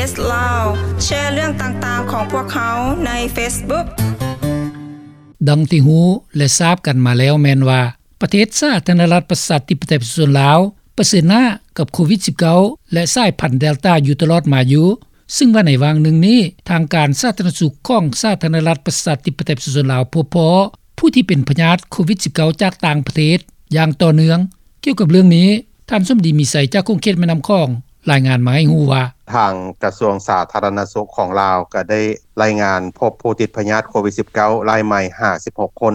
ເອສ ລາວ ແຊເລື່ອງຕ່າງໆຂອງພວກເຮົາໃນເຟສບຸກ. ດັ່ງທີ່ຮູ້ ແລະ ຊາບກັນມາແລ້ວແມ່ນວ່າ ປະເທດສາທາລະນະລັດປະຊາທິປະໄຕປະຊາຊົນລາວ ປະເຊີນໜ້າກັບໂຄວິດ-19 ແລະ ສາຍພັນເດລຕາຢູ່ຕະຫຼອດມາຢູ່, ຊຶ່ງວ່າໃນຫວ່າງໜຶ່ງນີ້ ທາງການສາທາລະນະສຸກຂອງສາທາລະນະລັດປະຊາທິປະໄຕປະຊາຊົນລາວ ພົບພໍ້ຜູ້ທີ່ເປັນພະຍາດໂຄວິດ-19 ຈາກຕ່າງປະເທດຢ່າງຕໍ່ເນື່ອງ. ກ່ຽວກັບເລື່ອງນີ້ ທ່ານສົມດີ ມີໄຊ ຈາກຂົງເຂດແມ່ນ້ຳຂອງ ລາຍງານມາໃຫ້ຮູ້ວ່າ ທາງກະຊວງສາທາລະນະສຸກຂອງລາວກໍໄດ້ລາຍງານພົບຜູ້ຕິດພະຍາດໂຄວິດ-19 ລາຍໃໝ່ ຫ້າສິບຫົກຄົນ.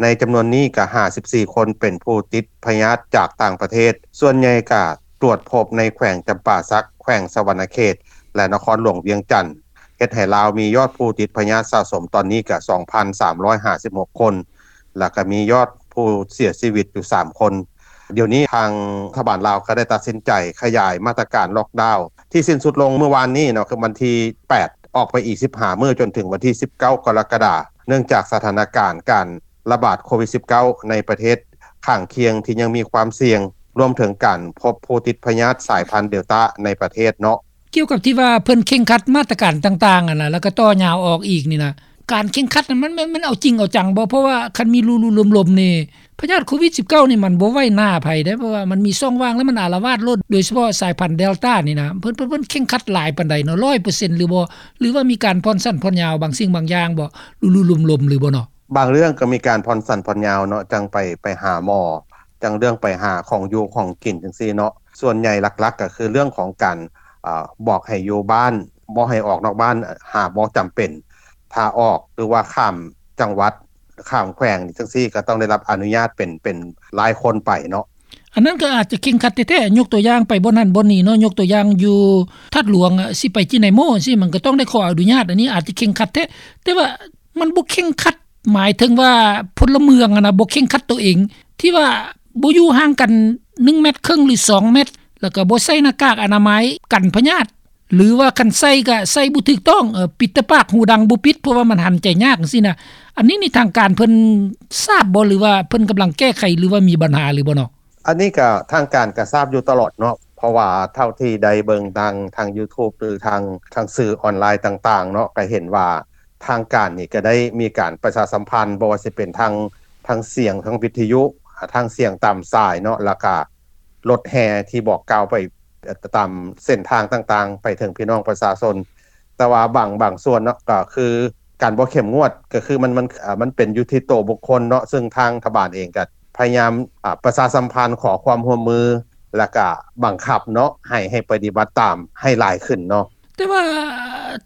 ໃນຈຳນວນນີ້ກໍ ຫ້າສິບສີ່ຄົນ ເປັນຜູ້ຕິດພະຍາດຈາກຕ່າງປະເທດ, ສ່ວນໃຫຍ່ກໍຕວດພົບໃນແຂວງຈຳປາສັກ, ແຂວງສະຫວັນນະເຂດ ແລະ ນະຄອນຫຼວງວຽງຈັນ, ເຮັດໃຫ້ລາວມີຍອດຜູ້ຕິດພະຍາດສະສົມຕອນນີ້ກໍ ສອງພັນສາມຮ້ອຍຫ້າສິບຫົກຄົນ ແລ້ວກໍມີຍອດຜູ້ເສຍຊີວິດຢູ່ສາມຄົນ. ດຽວນີ້ທາງລັດຖະບານລາວກໍໄດ້ຕັດສິນໃຈຂະຫຍາຍມາດຕະການລັອກດາວທີ່ສິ້ນສຸດລົງເມື່ອວານນີ້ເນາະ, ຄືວັນທີແປດ ອອກໄປອີກສິບຫ້າມື້ ຈົນເຖິງວັນທີສິບເກົ້າ ກໍລະກະດາ, ເນື່ອງຈາກສະຖານະການການລະບາດໂຄວິດ-19 ໃນປະເທດຂ້າງຄຽງທີ່ຍັງມີຄວາມສ່ຽງ, ລວມເຖິງການພົບຜູ້ຕິດພະຍາດສາຍພັນເດລຕາໃນປະເທດເນາະ. ກ່ຽວກັບທີ່ວ່າເພິ່ນເຄັ່ງຄັດມາດຕະການຕ່າງໆຫັ້ນນະ ແລ້ວກໍຕໍ່ຍາວອອກອີກນີ້ນະ, ການເຄັ່ງຄັດນັ້ນມັນ ມັນ ມັນເອົາຈິງເອົາຈັງບໍ່? ເພາະວ່າຄັນມີຫຼູໆລົມໆນີ້ ພະຍາດໂຄວິດ-19 ນີ້ມັນບໍ່ໄຫວໜ້າໃຜເດ້, ເພາະວ່າມັນມີຊ່ອງວ່າງ ແລ້ວມັນອາລະວາດໂລດ, ໂດຍສະເພາະສາຍພັນເດລຕານີ້ນະ ເພິ່ນ ເພິ່ນ ເພິ່ນເຄັ່ງຄັດຫຼາຍປານໃດເນາະ, ຮ້ອຍເປີເຊັນຫຼືບໍ່? ຫຼືວ່າມີການຜ່ອນສັ້ນຜ່ອນຍາວບາງສິ່ງບາງຢ່າງບໍ່? ຫຼູໆລົມໆຫຼືບໍ່ເນາະ? ບາງເລື່ອງກໍມີການຜ່ອນສັ້ນຜ່ອນຍາວເນາະ, ຈັ່ງໄປ ໄປຫາໝໍ, ຈັ່ງເລື່ອງໄປຫາຂອງຢູ່ຂອງກິນຈັ່ງຊີ້ເນາະ. ສ່ວນໃຫຍ່ຫຼັກໆກໍຄືເລື່ອງຂອງການ ອາ ບອກໃຫ້ຢູ່ບ້ານ, ບໍ່ໃຫ້ອອກນອກບ້ານ ຫາບໍ່ຈຳເປັນ. ຖ້າອອກ ຫຼືວ່າຂ້າມຈັງຫວັດ, ຂ້າມແຂວງຈັ່ງຊີ້ ກໍຕ້ອງໄດ້ຮັບອະນຸຍາດເປັນ ເປັນລາຍຄົນໄປເນາະ. ອັນນັ້ນກໍອາດຈະເຄັ່ງຄັດແທ້ໆ, ຍົກຕົວຢ່າງໄປບ່ອນນັ້ນບ່ອນນີ້ເນາະ, ຍົກຕົວຢ່າງຢູ່ທາດຫຼວງ ຊິໄປຈີນາຍໂມຊີ້ ມັນກໍຕ້ອງໄດ້ຂໍອະນຸຍາດ, ອັນນີ້ອາດຈະເຄັ່ງຄັດແທ້. ແຕ່ວ່າ ມັນບໍ່ເຄັ່ງຄັດ, ໝາຍເຖິງວ່າພົນລະເມືອງຫັ້ນນະ ບໍ່ເຄັ່ງຄັດໂຕເອງ ທີ່ວ່າບໍ່ຢູ່ຫ່າງກັນໜຶ່ງແມັດເຄິ່ງ ຫຼື ສອງແມັດ, ແລ້ວກໍບໍ່ໃສ່ໜ້າກາກອະນາໄມກັນພະຍາດ ຫຼືວ່າຄັນໃສ່ກໍໃສ່ບໍ່ຖືກຕ້ອງ, ເອີ ປິດແຕ່ປາກ ຫູດັງບໍ່ປິດ ເພາະວ່າມັນຫັນໃຈຍາກຈັ່ງຊີ້ນະ. ອັນນີ້ນີ້ທາງການເພິ່ນຊາບບໍ່ ຫຼືວ່າເພິ່ນກຳລັງແກ້ໄຂ ຫຼືວ່າມີບັນຫາຫຼືບໍ່ເນາະ? ອັນນີ້ກໍທາງການກໍຊາບຢູ່ຕະຫຼອດເນາະ, ເພາະວ່າເທົ່າທີ່ໄດ້ເບິ່ງທາງ ທາງຢູທູບ ຫຼື ທາງ ທາງສື່ອອນລາຍຕ່າງໆເນາະ, ກໍເຫັນວ່າທາງການນີ້ກໍໄດ້ມີການປະຊາສຳພັນ, ບໍ່ວ່າຊິເປັນທາງ ທາງສຽງ ທາງວິທະຍຸ, ທາງສຽງຕາມສາຍເນາະ, ແລ້ວກໍລົດແຫ່ທີ່ບອກກ່າວໄປ ເອີ ຕາມເສັ້ນທາງຕ່າງໆ ໄປເຖິງພີ່ນ້ອງປະຊາຊົນ. ແຕ່ວ່າບາງ ບາງສ່ວນເນາະ ກໍຄືການບໍ່ເຂັ້ມງວດ ກໍຄືມັນ ມັນ ເອີ ມັນເປັນຢູ່ທີ່ໂຕບຸກຄົນເນາະ, ຊຶ່ງທາງລັດຖະບານເອງກໍພະຍາຍາມ ອາ ປະຊາສຳພັນ ຂໍຄວາມຮ່ວມມື ແລ້ວກໍບັງຄັບເນາະ ໃຫ້ ໃຫ້ປະຕິບັດຕາມໃຫ້ຫຼາຍຂຶ້ນເນາະ. ແຕ່ວ່າ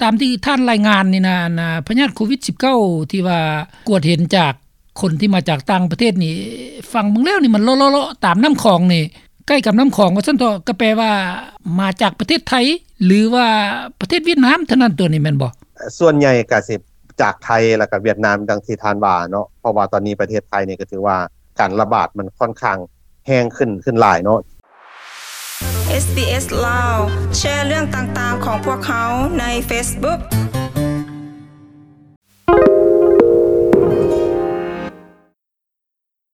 ຕາມທີ່ທ່ານລາຍງານນີ້ນະ ອັນ ອາ ພະຍາດໂຄວິດ-19 ທີ່ວ່າກວດເຫັນຈາກ ຄົນທີ່ມາຈາກຕ່າງປະເທດນີ້ ຟັງເບິ່ງແລ້ວນີ້ມັນເລາະໆໆຕາມນ້ຳຂອງນີ້ ໃກ້ກັບນ້ຳຂອງວ່າຊັ້ນເຖາະ, ກໍແປວ່າມາຈາກປະເທດໄທ ຫຼືວ່າປະເທດຫວຽດນາມເທົ່ານັ້ນຕົວະນີ້ແມ່ນບໍ່? ສ່ວນໃຫຍ່ກໍຊິຈາກໄທ ແລ້ວກໍຫວຽດນາມ ດັ່ງທີ່ທ່ານວ່າເນາະ, ເພາະວ່າຕອນນີ້ປະເທດໄທນີ້ກໍຖືວ່າການລະບາດມັນຂ້ອນຂ້າງແຮງຂຶ້ນ ຂຶ້ນຫຼາຍເນາະ. ເອສບີເອສ ລາວ ແຊເລື່ອງຕ່າງໆຂອງພວກເຮົາໃນເຟສບຸກ.